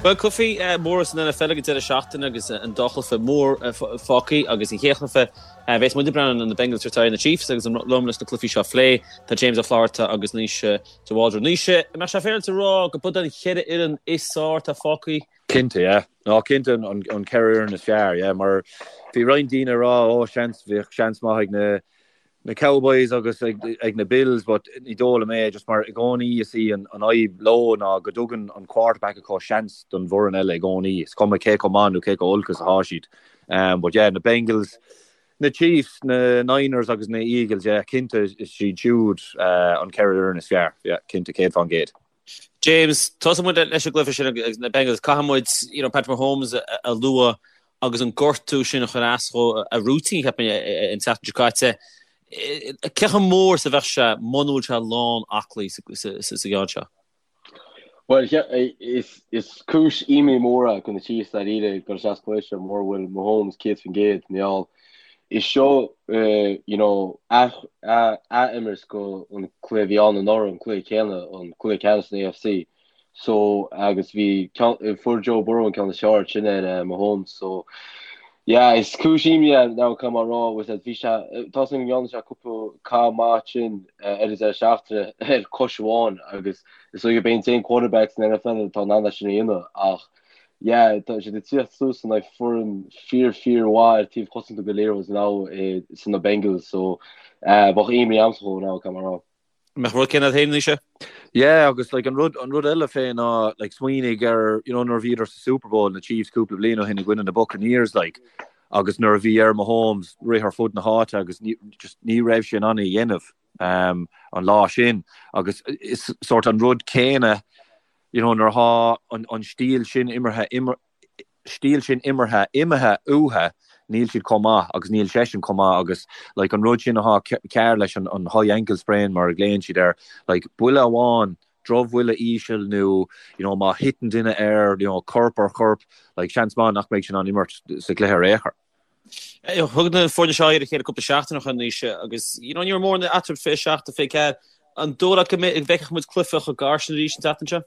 Bhuel, cluichí móra san NFL ag an deireadh seachtaine agus an dá chluiche mór fágtha agus an chéad chluiche a bheas muid ag breathnú ná na Bengals ag tabhairt aghaidh ar na Chiefs agus liom leis na cluichí seo a phlé tá James Ó Flatharta agus Naoise de Bhaldraithe. Naoise, an mbeadh sé féaráilte a rá go b'iod an cheithre fhoireann is fearr atá fágtha? Cinnte, yeah. Ná cinnte an cheithre fhoireann is fearr, yeah, mar bhí roinnt daoine ag rá, ó, seans, bheadh seans maith ag na na Cowboys agus ag na Bills but ní dóigh liom é just mar i gcónaí is í an fhadhb leo ná go dtugann an quarterback acu seans don bhfoireann eile i gcónaí, is cuma cé chomh maith nó cé chomh olc is atá siad. But yeah, na Bengals, na Chiefs, na Niners agus na Eagles, yeah, cinnte is iad siúd an cheithre fhoireann is fearr, yeah, cinnte, 100%. James, tosóidh muid leis an gcluiche sin agus na Bengals. Caithfidh muid, you know, Patrick Mahomes a lua agus an gortú sin a chuir as dhó a routine, cheapfainn, an tseachtain seo caite. Cé chomh mór is a bheadh sé muna bhfuil sé lán aclaí sa gceann seo? Bhuel, is cúis imní mór é do na Chiefs dáiríre ag dul isteach sa chluiche seo mura bhfuil Mahomes 100% mar gheall Is seo you know ath-imirt go an cluiche a bhí ann anuraidh, an cluiche céanna, an cluiche ceannais san AFC. So agus bhí fuair Joe Burrow an ceann is fearr sin ar Mahomes. So yeah, is cúis imní é now caithfidh mé a rá with that bhí sé tá a fhios agam go ndearna sé cúpla cath maith sin ar an deireadh seachtaine ar cois amháin agus is dóigh gurb é an t-aon quarterback san NFL atá in ann é sin a dhéanamh ach Yeah, tá siad ag tíocht suas in aghaidh foireann fíor fíor mhaith ar taobh cosanta go léir now sin na Bengals so bheadh imní a'msa dhó now caithfidh mé a rá. Mbeadh rud céanna agat féin Naoise? Yeah agus like an rud an rud eile fé ná like smaoinigh ar you know nuair a bhíodar sa Super Bowl na Chiefs cúpla bliain ó shin i gcoinne na Buccaneers like agus nuair a bhí ar Mahomes rith ar fud na háite agus ní just ní raibh sé in ann é a dhéanamh um, an lá sin agus is sort an rud céanna you know, nuair atá an, an stíl sin imeartha, stíl sin imeartha imithe uathu, níl siad chomh maith agus níl seisean chomh maith agus like, an rud sin atá cearr leis an, an high ankle sprain mar a ghlaonn siad air, like, buille amháin, drochbhuille íseal nó you know, má thiteann duine air, you know, corp ar chorp, like, seans maith nach mbeidh sé in ann imirt sa gcluiche ar aon chor. Thug na foirne seo aghaidh ar a chéile cúpla seachtain ó shin Naoise agus you know, ní raibh mórán eatarthu 27-24. An dóigh leat go bhfeicfidh muid cluiche chomh gar sin arís an tseachtain seo?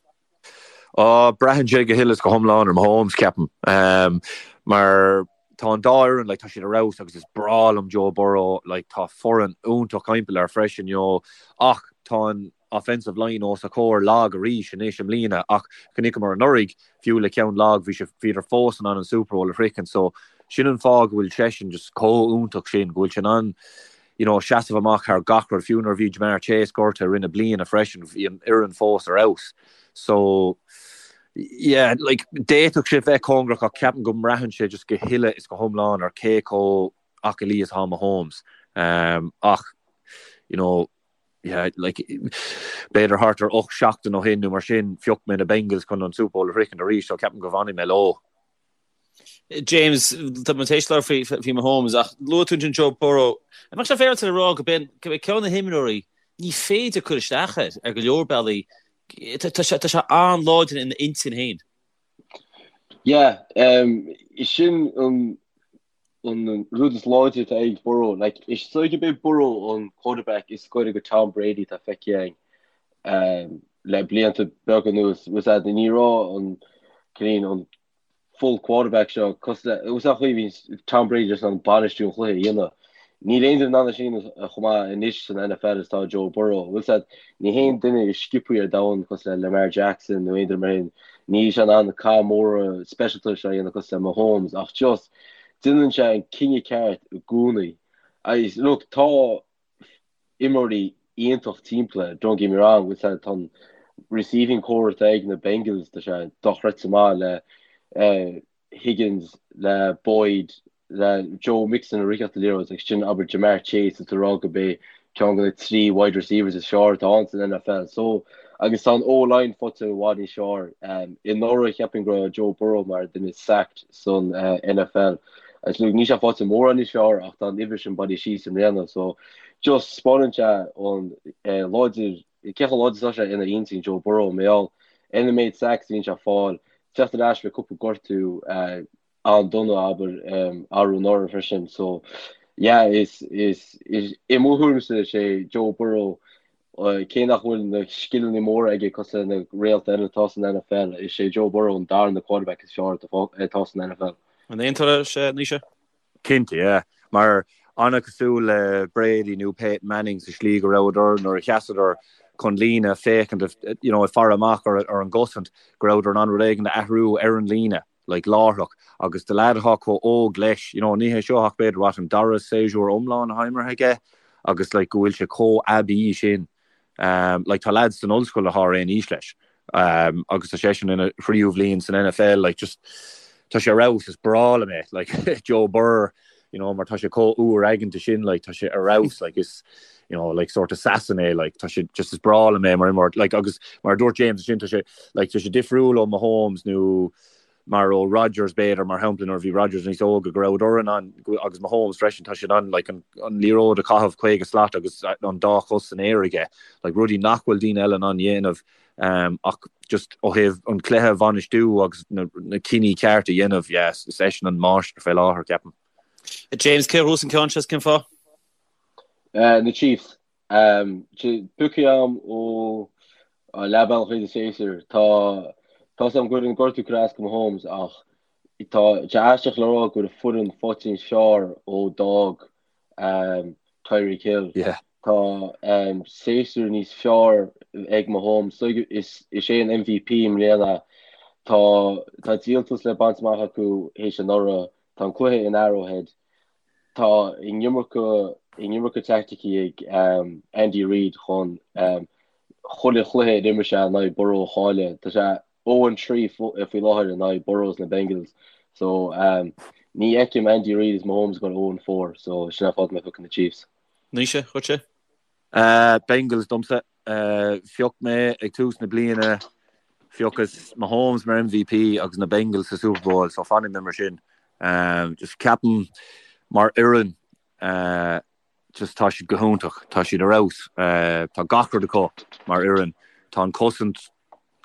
Á, braitheann sé go huile is go hiomlán ar Mahomes, ceapaim. Um, mar tá an dá fhoireann, like, tá siad ar fheabhas agus is breá liom Joe Burrow, like, tá foireann iontach timpeall air freisin, you know, ach tá an, offensive line os a chomhair lag arís anois i mbliana ach chonaiceamar anuraidh, fiú le ceann lag, bhí sé, bhíodar fós in ann an Super Bowl a shroichint so sin an fáth go bhfuil seisean just chomh iontach sin, go bhfuil sé in ann you know seasamh amach thar gach rud, fiú nuair a bhí Ja'Marr Chase gortaithe i rith na bliana freisin, bhí an fhoireann fós ar fheabhas so yeah like d'fhéadfadh sé bheith cóngarach ach ceapaim go mbraitheann sé just go huile is go hiomlán ar cé chomh aclaí is atá Mahomes ach you know yeah, like, b'fhéidir thart ar 8 seachtain ó shin nó mar sin, phioc mé na Bengals chun an Super Bowl a shroichint arís, so ceapaim go bhfanfaidh mé leo. James, tá muid tar éis labhairt faoi, faoi Mahomes, ach luaigh tú ansin Joe Burrow. An mbeadh sé féaráilte a rá go b'in, go b'é ceann de na himreoirí ní féidir cur isteach air ar go leor bealaí. Tá, tá sé, tá sé an-láidir ina intinn féin. Yeah, um, sin an an rud is láidre atá ag Burrow. Like, is dóigh gurb é Burrow an quarterback is gaire go Tom Brady atá feicthe againn um, le blianta beaga anuas. Was that ní raibh an cineál an full quarterback seo cosúil le was that chaoi bhí Tom Brady just an bainistiú an chluiche a dhéanamh. Níl aon duine in ann é sin chomh maith anois san NFL is atá Joe Burrow. Was that ní haon duine is sciobthaí ar domhan cosúil le Lamar Jackson nó aon duine mar sin. Níl sé in ann na cath móra speisialta seo a dhéanamh cosúil le Mahomes ach just déanann sé an cinneadh ceart i gcónaí. Agus look, tá imreoirí iontach timpeall air, don't get me wrong, bhfuil sé, tá an receiving corps atá ag na Bengals, tá sé dochreidte maith le Higgins, le Boyd, le Joe Mixon ag ritheacht an liathróid agus sin abair Ja'Marr Chase atá rá gurb é ceann de na 3 wide receivers is fearr atá ann san NFL. So agus tá an O-line faighte i bhfad níos fearr. Anuraidh cheapfainn go raibh Joe Burrow mar duine is sacked san NFL. Agus look níl sé faighte mórán níos fearr ach tá an uimhir sin bailithe síos i mbliana. So just 'spáineann sé an láidir cé chomh láidir is atá sé ina intinn Joe Burrow mar gheall ar an méid sacks a bhíonn sé ag fáil, teacht ar ais le cúpla gortú an-dona abair arú anuraidh freisin so yeah is is is i mo thuairimse is é Joe Burrow. Cé nach bhfuil na scileanna móra aige cosúil le na réalta eile atá san NFL, is é Joe Burrow an darna quarterback is fearr atá san NFL. An aontófá leis, Naoise? Cinnte, yeah. Mar an-chosúil le Brady nó Peyton Manning sa slí go rabhadar nuair a sheasadar chun líne féachaint, you know, ag faire amach ar an gcosaint, go rabhadar in ann rud éigin a athrú ar an líne. like láithreach agus do leaid atá chomh óg leis, you know, ní hé seo ach b'fhéidir what, an dara séasúr iomlán atá imeartha aige agus like go bhfuil sé chomh aibí sin. Um, like tá leaids san ollscoil atá ar aon aois leis um, agus tá seisean ina thríú bhliain san NFL, like just tá sé ar fheabhas, is breá liom é, like Joe Burr, you know, mar tá sé chomh úr aigeanta sin, like tá sé ar fheabhas, like is you know, like sort assassin é, like tá sé just is breá liom é mar imreoir, like agus mar a dúirt James ansin tá sé like tá sé difriúil ó Mahomes nó mar ó Rodgers b'fhéidir mar shampla nuair a bhí Rodgers níos óga go rabhadar in ann agus Mahomes freisin tá sé in ann like an, an liathróid a chaitheamh 50 slat agus an dá chos san aer aige like rudaí nach bhfuil daoine eile in ann dhéanamh um, ach just ó thaobh an cluiche a bhainistiú agus na, na cinní ceart a dhéanamh yes, is eisean an máistir fé láthair ceapaim. James cé a ghnóthós an ceann seo is cén fáth? Na Chiefs. Pioctha agam ó leath bealach tríd an séasúr. Tá tá 's agam go bhfuil an gortú curtha as go Mahomes ach tá sé aisteach le rá go bhfuil an foireann faighte níos fearr ó d'fhág Tyreek Hill. Tá séasúr níos fearr ag Mahomes. Is is é an MVP i mbliana. Tá tá díoltas le baint amach acu théis anuraidh. Tá an cluiche in Arrowhead. Tá an iomarca an iomarca teaicticí ag Andy Reid chun chuile chluiche a d'imir sé in aghaidh Burrow a chailleadh. Tá sé 0-3 faoi láthair in aghaidh Burrow is na Bengals. So ní fheicim Andy Reid is Mahomes ag dul 0-4 so sin an fáth go mbeidh piocadh na Chiefs. Naoise, dhuitse? Bengals domsa. Phioc mé ag tús na bliana, phiocas Mahomes mar MVP agus na Bengals sa Super Bowl, so fanfaidh mé mar sin. Just ceapaim mar fhoireann, just tá siad go hiontach, tá siad ar fheabhas, tá gach rud acu mar fhoireann. Tá an cosaint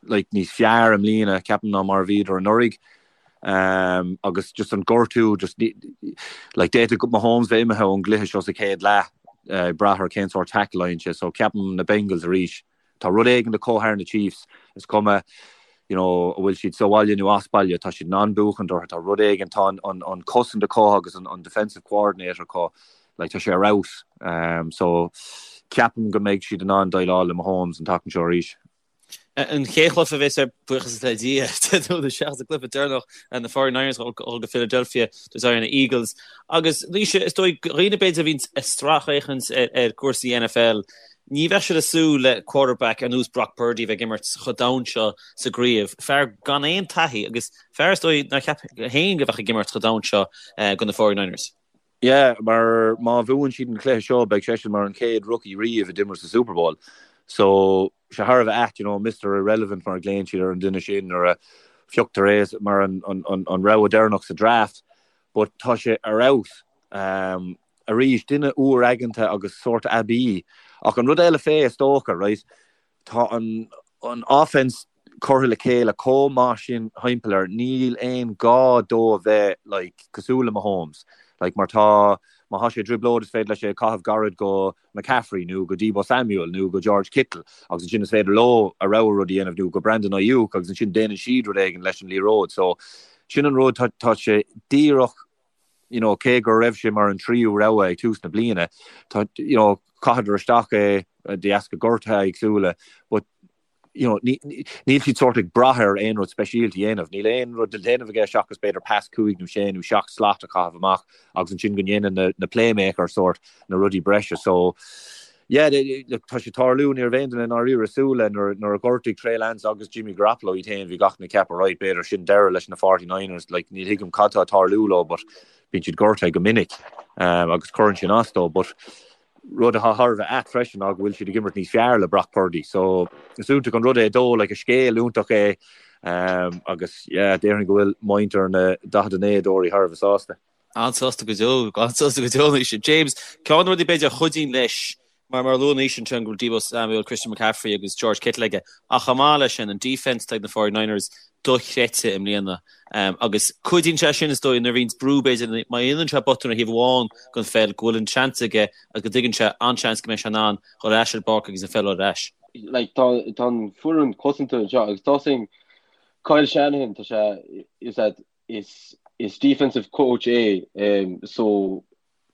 like níos fearr i mbliana ceapaim ná mar a bhíodar anuraidh um, agus just an gortú just like d'fhéadfadh Mahomes bheith imithe ón gcluiche seo sa chéad leath uh, brath ar cén sórt tackle a fhaigheann sé so ceapaim na Bengals arís tá rud éigin acu thar na Chiefs is cuma you know, an bhfuil siad sa bhaile nó as baile tá siad in ann buachan orthu tá rud éigin tá an, an, an cosaint acu agus an, an defensive coordinator acu like, tá sé ar fheabhas um, so ceapaim go mbeidh siad in ann déileáil le Mahomes an tseachtain seo arís. An chéad chluiche a bheas ar buíochas le Dia seachas an cluiche deireanach na 49ers ag dul go Philadelphia tabhairt aghaidh ar na Eagles. Agus Naoise, is dóigh do dhaoine b'fhéidir a bhíonn ag sracfhéachaint ar cúrsaí NFL, ní bheadh siad ag súil le quarterback ar nós Brock Purdy a bheith ag imirt chomh domhain seo sa gcraobh. Fear gan aon taithí agus fear is dóigh nár cheap féin go bheadh ag imirt chomh domhain seo do na 49ers. Yeah, mar má bhuann siad an cluiche seo beidh seisean mar an chéad rookie riamh a d'imir sa Super Bowl. So, sé thar a bheith ait, you know, Mister Irrelevant mar a ghlaonn siad ar an duine sin nuair a phioctar é mar an, an, an, an rogha deireanach sa draft. But tá sé ar fheabhas. Um, arís, duine úr aigeanta agus sórt aibí. Ach an rud eile fé, is dócha, right, Tá an an offense curtha le chéile chomh maith sin thimpeall air, níl aon ghá dó a bheith like cosúil le Mahomes. Like mar tá, má thá sé i dtrioblóid is féidir leis é a chaitheamh gairid go McCaffrey nó go Deebo Samuel nó go George Kittle agus ansin is féidir leo a rogha rud a dhéanamh nó go Brandon Aiyuk agus ansin déanann siad rud éigin leis an liathróid. So sin an rud, tá tá sé díreach you know, cé go raibh sé mar an tríú rogha ag tús na bliana, tá, you know, chaitheadar isteach é de dheasca gortuithe éagsúla, but, you know, níl siad sórt ag brath air aon rud speisialta a dhéanamh. Níl aon rud le déanamh aige seachas b'fhéidir pas cúig nó sé nó seacht slat a chaitheamh amach agus ansin go ndéanann na, na playmakers sórt na rudaí breise. So, yeah, look, tá sé tarlú, ní raibh aon duine i ndáiríre ag súil le nuair, nuair a ghortaigh Trey Lance agus Jimmy Garoppolo iad féin, bhí gach duine ag ceapadh, right, b'fhéidir sin deireadh leis na 49ers, like, ní thuigim cad tá ag tarlú leo, but bíonn siad gortaithe go minic, um, agus cuireann sin as dó, but rud atá thar a bheith ait freisin ná go bhfuil siad ag imirt níos fearr le Brock Purdy, so is iontach an rud é dó, like, is scéal iontach é, um, agus yeah, déarfainn go bhfuil muintir na 49dóirí thar a bheith sásta. An-sásta go deo, an-sásta go deo anois. James, ceann de na rudaí b'fhéidir a chuidíonn leis. Mar mar a luaigh Naoise ansin go bhfuil Deebo Samuel, Christian McCaffrey agus George Kittle aige ach chomh maith leis sin an defence atá ag na 49ers dochreidte i mbliana agus cuidíonn sé sin is dóigh nuair a bhíonns brú b'fhéidir má dhéanann sé botún ar thaobh amháin den pheil go bhfuil an seans aige agus go dtuigeann sé an-seans go mbeidh sé in ann dhul ar ais ar an bpáirc agus an pheil ar ais. Like tá tá an foireann cosanta anseo agus tá sin Kyle Shanahan tá sé is that is is defensive coach é um, so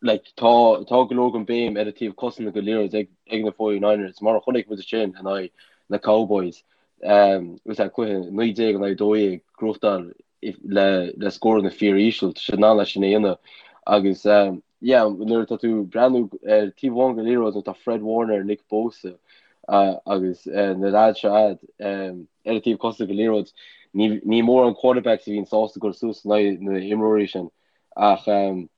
like tá tá go leor den béim ar an taobh cosanta den liathróid ag ag na 49ers mar a chonaic muid sin in aghaidh na Cowboys um, was that cluiche 19 in aghaidh 12 gnóthachtáil le le scóranna fíoríseal tá siad in ann é sin a dhéanamh agus um, yeah nuair atá tú ag breathnú ar taobh amháin den liathróid nuair atá Fred Warner, Nick Bosa uh, agus uh, na lads seo a'd um, ar an taobh cosanta den liathróid ní ní mórán quarterbacks a bhíonn sásta dul suas in aghaidh na imreoirí sin ach um,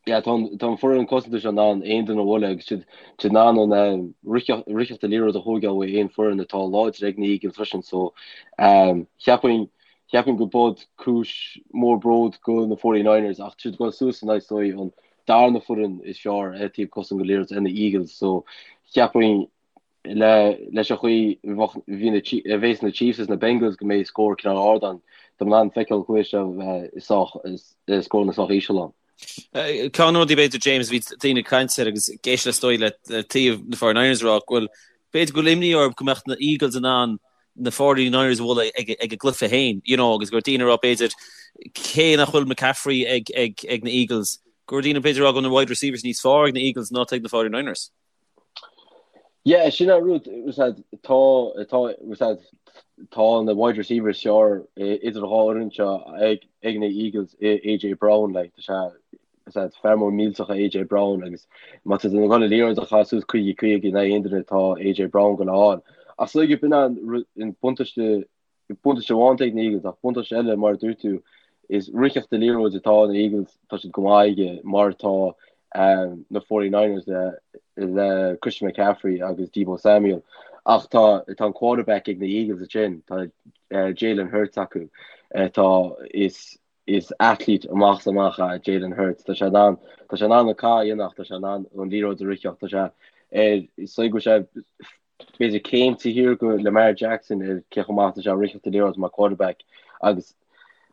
yeah, tá an tá an foireann cosanta seo in ann aon duine a bhualadh agus siad siad in ann an um, ritheacht ritheacht an liathróid a thógáil ó aon foireann atá láidir ag na Eagles freisin so um, cheapfainn cheapfainn go bud cúis mór bród go na 49ers ach siad ag dul suas in aghaidh is dóigh an darna foireann is fearr ar taobh cosanta den liathróid na Eagles so cheapfainn le leis an chaoi bhí na a bhéas na Chiefs is na Bengals go mbeidh scór cineál ard ann. Tá mé in ann feiceáil an cluiche seo bheith sách scóranna sách íseal ann. Ceann de na rudaí b'fhéidir James a bhí daoine ag caint air agus ag éisteacht is dóigh le taobh na 49ers a rá go bhfuil b'fhéidir go bhfuil imní orthu go mbeadh na Eagles in ann na 49ers a bhualadh ag ag a gcluiche féin you know agus go raibh daoine ag rá b'fhéidir cé nach bhfuil McCaffrey ag ag ag na Eagles go raibh daoine b'fhéidir ag rá go bhfuil na wide receivers níos fearr ag na Eagles ná ag na 49ers. Yeah, sin an rud, tá, tá, tá na wide receivers is fearr idir an dhá fhoireann seo ag, ag na Eagles, AJ Brown, like, tá sé, tá sé fear mór millteach é AJ Brown agus má tá tú ag dul an liathróid a chaitheamh suas 50 50 in aghaidh aon duine tá AJ Brown ag dul a fháil. Ach is dóigh b'in an buntáiste Buntáiste amháin atá ag na Eagles ach buntáiste eile, mar a dúirt tú, is ritheacht an liathróid atá na Eagles, tá siad go maith aige, mar atá na 49ers le le Christian McCaffrey agus Deebo Samuel. Ach tá tá an quarterback ag na Eagles ansin, tá Jalen Hurts acu. Tá is is athlete amach is amach é Jalen Hurts. Tá sé in ann tá sé in ann an cath a dhéanamh ach tá sé in ann an liathróid a ritheacht. Tá sé ar is dóigh go bhfuil sé b'fhéidir céim taobh thiar go Lamar Jackson ar cé chomh maith atá sé ag ritheacht an liathróid mar quarterback agus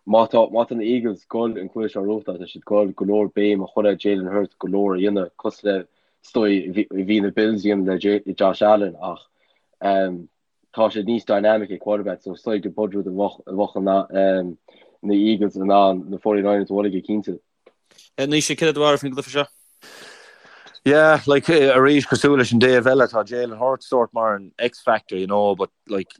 má tá má tá na Eagles ag dul an cluiche seo a ghnóthachtáil tá siad ag dul go leor béim a chur ar Jalen Hurts go leor a dhéanamh cosúil le is dóigh a bhí na Bills a dhéanamh le Josh Allen ach um, tá sé níos dynamic ag quarterback so is dóigh go bud rud a bheadh a bheadh um, na Eagles in ann na 49ers a bhualadh go cinnte. Naoise, céard é do bharúil faoin gcluiche seo? Yeah, like arís cosúil leis an dtaobh eile tá Jalen Hurts sort mar an X-factor, you know, but like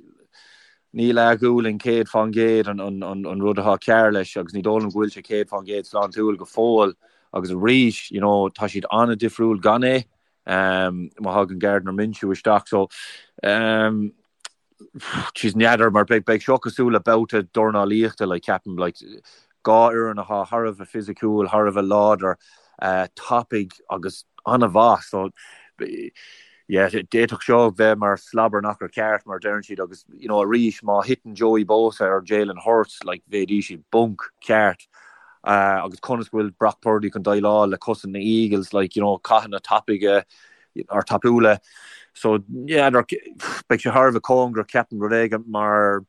níl a ghualainn 100% an, an, an, an rud atá cearr leis agus ní dóigh liom go bhfuil sé 100% sláintiúil go fóill agus arís, you know, tá siad an-difriúil gan é um, má thagann Gardner Minshew isteach so um, Jeez, n'fheadar mar beidh beidh seo cosúil le babhta dornálaíochta like ceapaim like dhá fhoireann atá thar a bheith fisiciúil, thar a bheith láidir, tapaidh agus an-mhaith so yeah d'fhéadfadh seo bheith mar slobberknocker ceart mar a deireann siad agus you know arís má thiteann Joey Bosa ar Jalen Hurts like bheidís i bponc ceart agus conas go bhfuil Brock Purdy chun déileáil le cosaint na Eagles like you know cathanna tapaidh or tapúla. So n'fheadar, beidh sé thar a bheith cóngarach ceapaim rud éigin mar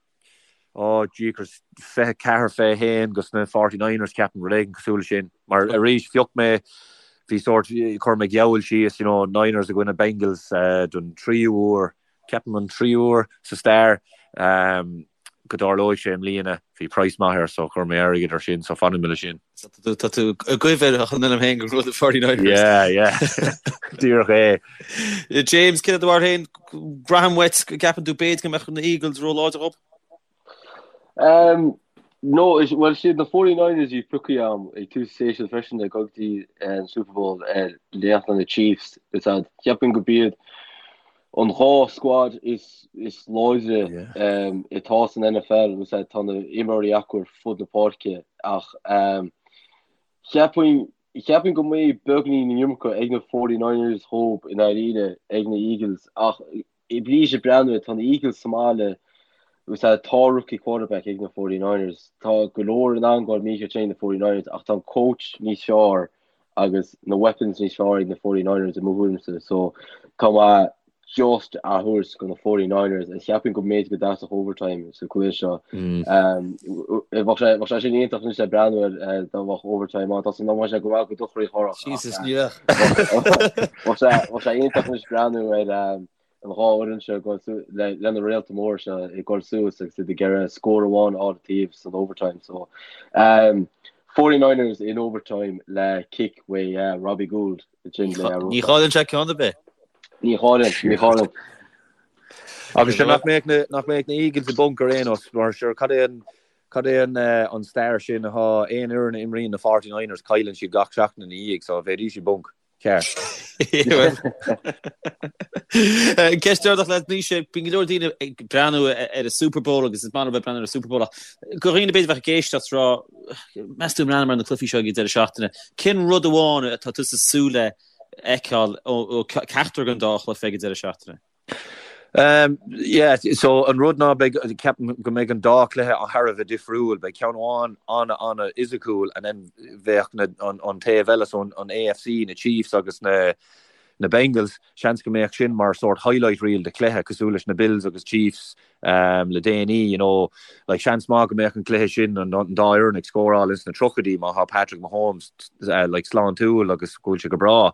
oh jeekers 24 21 dos na 49ers ceapaim rud éigin cosúil leis sin. Mar arís phioc mé bhí sórt chuir mé geall síos you know Niners i gcoinne Bengals uh, don tríú huair ceapaim an tríú huair sa stair um, go dtarlóidh sé i mbliana. Bhí praghas maith air so chuir mé airgead ar sin so fanfaidh mé leis sin. Tá tú ag goimh ar chun liom féin go raibh 49ers. Yeah, yeah. Díreach é. James, céard é do bharúil féin, braithim uait go gceapann tú b'fhéidir go mbeadh na Eagles róláidir dhób? Um, no, is, well, siad na 49ers a bhí pioctha agam ag tús séasúir freisin ag dul go dtí an Super Bowl ar leath na Chiefs. Is ea, cheapfainn go b'iad an dá squad is is láidre atá san NFL agus tá na imreoirí acu ar fud na páirce ach cheapfainn cheapfainn go mbeidh beagainín an iomarca ag na 49ers dhób i ndáiríre ag na Eagles ach arís ag breathnú tá na Eagles sa mbaile agus tá rookie quarterback ag na 49ers tá go leor in ann dul mícheart ag na 49ers ach tá an coach níos fearr. agus na weapons níos fearr ag na 49ers i mo thuairimse so tá mé just á thabhairt go na 49ers is cheapfainn go mb'fhéidir go dteastódh overtime sa cluiche seo. Bheadh sé bheadh sé sin iontach anois le breathnú air dá mbeadh overtime ann. Tá san am sé go bhfuil go dochraí chorach. Jesus ní bheadh. Bheadh sé bheadh sé iontach anois breathnú ar an dhá fhoireann seo ag dul su- le le na réalta móra seo ag dul suas agus iad ag iarraidh scór amháin a fháil an taobh san overtime so um, 49ers in overtime le kick uaidh uh, Robbie Gould. Ní chailleann sé ceann ar bith. Ní chailleann, ní chailleann. Agus sure nach mbeadh na nach mbeadh na Eagles i bponc ar aon nós mar sure cad é an cad é an an stair sin atá aon fhoireann a imríonn na 49ers cailleann siad gach seachtain ina dhiaidh so bheidís i bponc ceart. Ceist deireanach leat Naoise, bíonn go leor daoine ag breathnú ar an Super Bowl agus is maith leo bheith ag breathnú ar an Super Bowl ach do dhaoine b'fhéidir a bheadh ag éisteacht rá Meas tú ag breathnú ar na cluichí seo ag an deireadh seachtaine, cén rud amháin atá tusa ag súil le fheiceáil ó ceachtar den dá chluiche ag an deireadh seachtaine? Yeah, so an rud ná beidh, ceapaim go mbeidh an dá chluiche thar a bheith difriúil. Beidh ceann amháin an-an-fhisiciúil and then bheadh na, an, an taobh eile, so an, an AFC, na Chiefs agus na, na Bengals, seans go mbeadh sin mar sórt highlight reel de chluiche, cosúil leis na Bills agus Chiefs le déanaí, you know, like seans maith go mbeadh an cluiche sin an dá fhoireann ag scóráil ins na tríochaidí má thá Patrick Mahomes like sláintiúil agus go bhfuil sé go breá.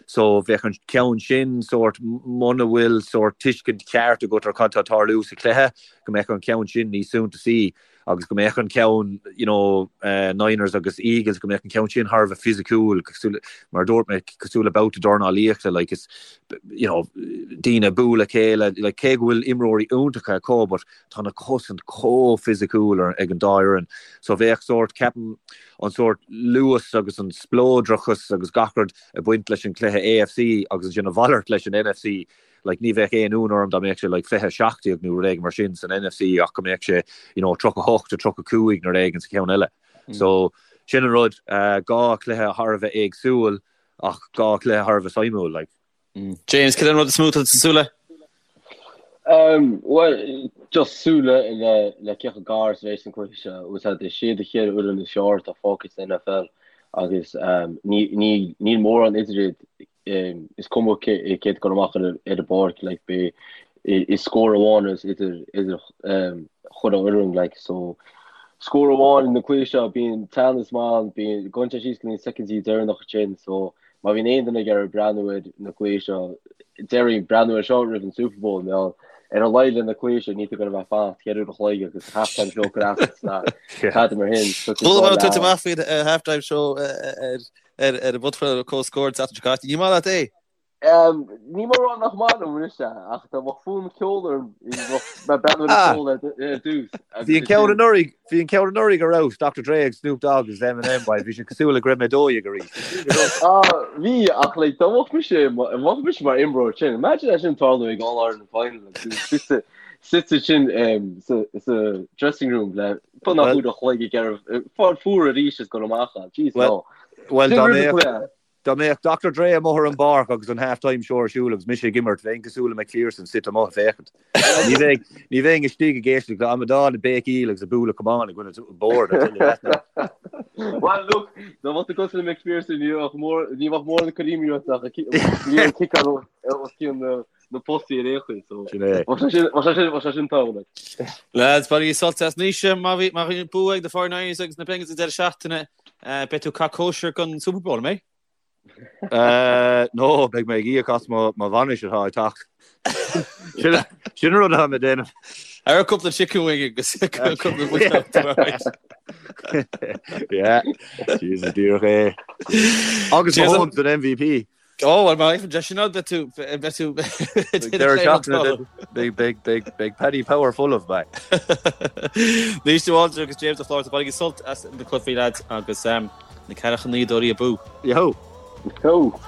So bheadh an ceann sin sórt muna bhfuil sórt tuiscint cheart agat ar cad tá ag tarlú sa chluiche, go mbeadh an ceann sin níos suntasaí. agus go mbeadh an ceann, you know, Niners agus Eagles, go mbeadh an ceann sin thar a bheith fisiciúil, cosúil, mar a dúirt mé, cosúil le babhta dornálaíochta, like, is, you know, daoine ag bualadh a chéile, like, cé go bhfuil imreoirí iontacha acu, but tá na cosaint chomh fisiciúil ar, ag an dá fhoireann. So bheadh sórt, ceapaim, an sórt luas agus an spleodrachas agus gach rud ag baint leis an chluiche AFC agus ansin a mhalairt leis an NFC. Like ní bheadh aon ionadh orm dá mbeadh sé like 20-17 nó rud éigin mar sin san NFC ach go mbeadh sé you know 38-35 nó rud éigin sa cheann eile. So sin an rud, dhá chluiche thar a bheith éagsúil ach dhá chluiche thar a bheith suimiúil like. James, cad é an rud is mó atá tú ag súil le? Um, well, just súil le le le cé chomh gar is a bheas an cluiche seo. Is iad na ceithre fhoireann is fearr atá fágtha san NFL agus um, ní ní níl mórán idir iad is cuma cé atá ag dul amach ar an bpáirc like beidh is scór amháin is idir idir chuile fhoireann like so scór amháin na cluichí seo bíonn teannas maith ann bíonn gabhann sé síos go dtí na soicindí deireanach ansin so má bhíonn aon duine ag iarraidh breathnú ar na cluichí seo déarfainn breathnú ar seo roimh an Super Bowl nó ar a laghad le na cluichí seo níl tú ag gabháil a bheith ag fanacht ceithre uair a chloig agus halftime show ag rá tada mar sin Chuala mé tú amach faoin halftime show ar Ar ar an bpodchraoladh Comhscór an tseachtain seo caite. Ní maith leat é? Ní maith rá nach maith liom anois é, ach dá mbeadh fonn ceoil orm, bheadh mé ag breathnú ar an cheol ar dtús. Bhí an ceann anuraidh, bhí an ceann anuraidh ar fheabhas, Dr Dre agus Snoop Dogg agus Eminem, bhuel, bhí sé cosúil le go raibh mé 12 arís. Ah, bhí, ach like, dá mbeadh mise, dá mbeadh mise mar imreoir sin, imagine é sin tarlú ag All Ireland Final, suite suite sin sa sa dressing room le beagnach uair a chloig ag iarraidh fáil fuar arís is dul amach ann. Jeez, no. Well, dá mbeadh dá mbeadh Dr Dre amuigh ar an bpáirc agus an half-time show ar siúl agus mise ag imirt, bheinn cosúil le McPherson suite amuigh ag féachaint. Ní bheinn ní bheinn istigh ag éisteacht le amadán ag béicíl agus ag bualadh camán i gcoinne bord, I tell you that now. Well, look, dá mbeadh tú cosúil le McPherson, ní bheadh mór ní bheadh mórán ag cur imní ort ach ní an ciceáil os cionn na na postaí ar aon chaoi, so Sin é. bheadh sé sin bheadh sé sin bheadh sé sin tábhachtach. Lads, bainigí sult as Naoise, má bhí má bhí bua ag na 49ers agus na Bengals an deireadh seachtaine, beidh tú ag caitheamh cóisir don Super Bowl, an mbeidh? No, beidh mé ag íoc as mo mo bhainis atá ag teacht. Sin sin an rud atá mé ag déanamh. Ar cúpla chicken wing agus cúpla buiséad. Yeah, Jesus díreach é. Agus Mahomes an MVP. Ó, bhuel, mar aon sin beidh tú, beidh tú, Deireadh seachtaine, beidh, beidh, beidh, beidh Paddy Power folamh, beidh. Naoise de Bhaldraithe agus James Ó Flatharta, bainigí sult as na cluichí, lads, agus na Ceathracha Naoi Dóirí abú. Yo! Yo!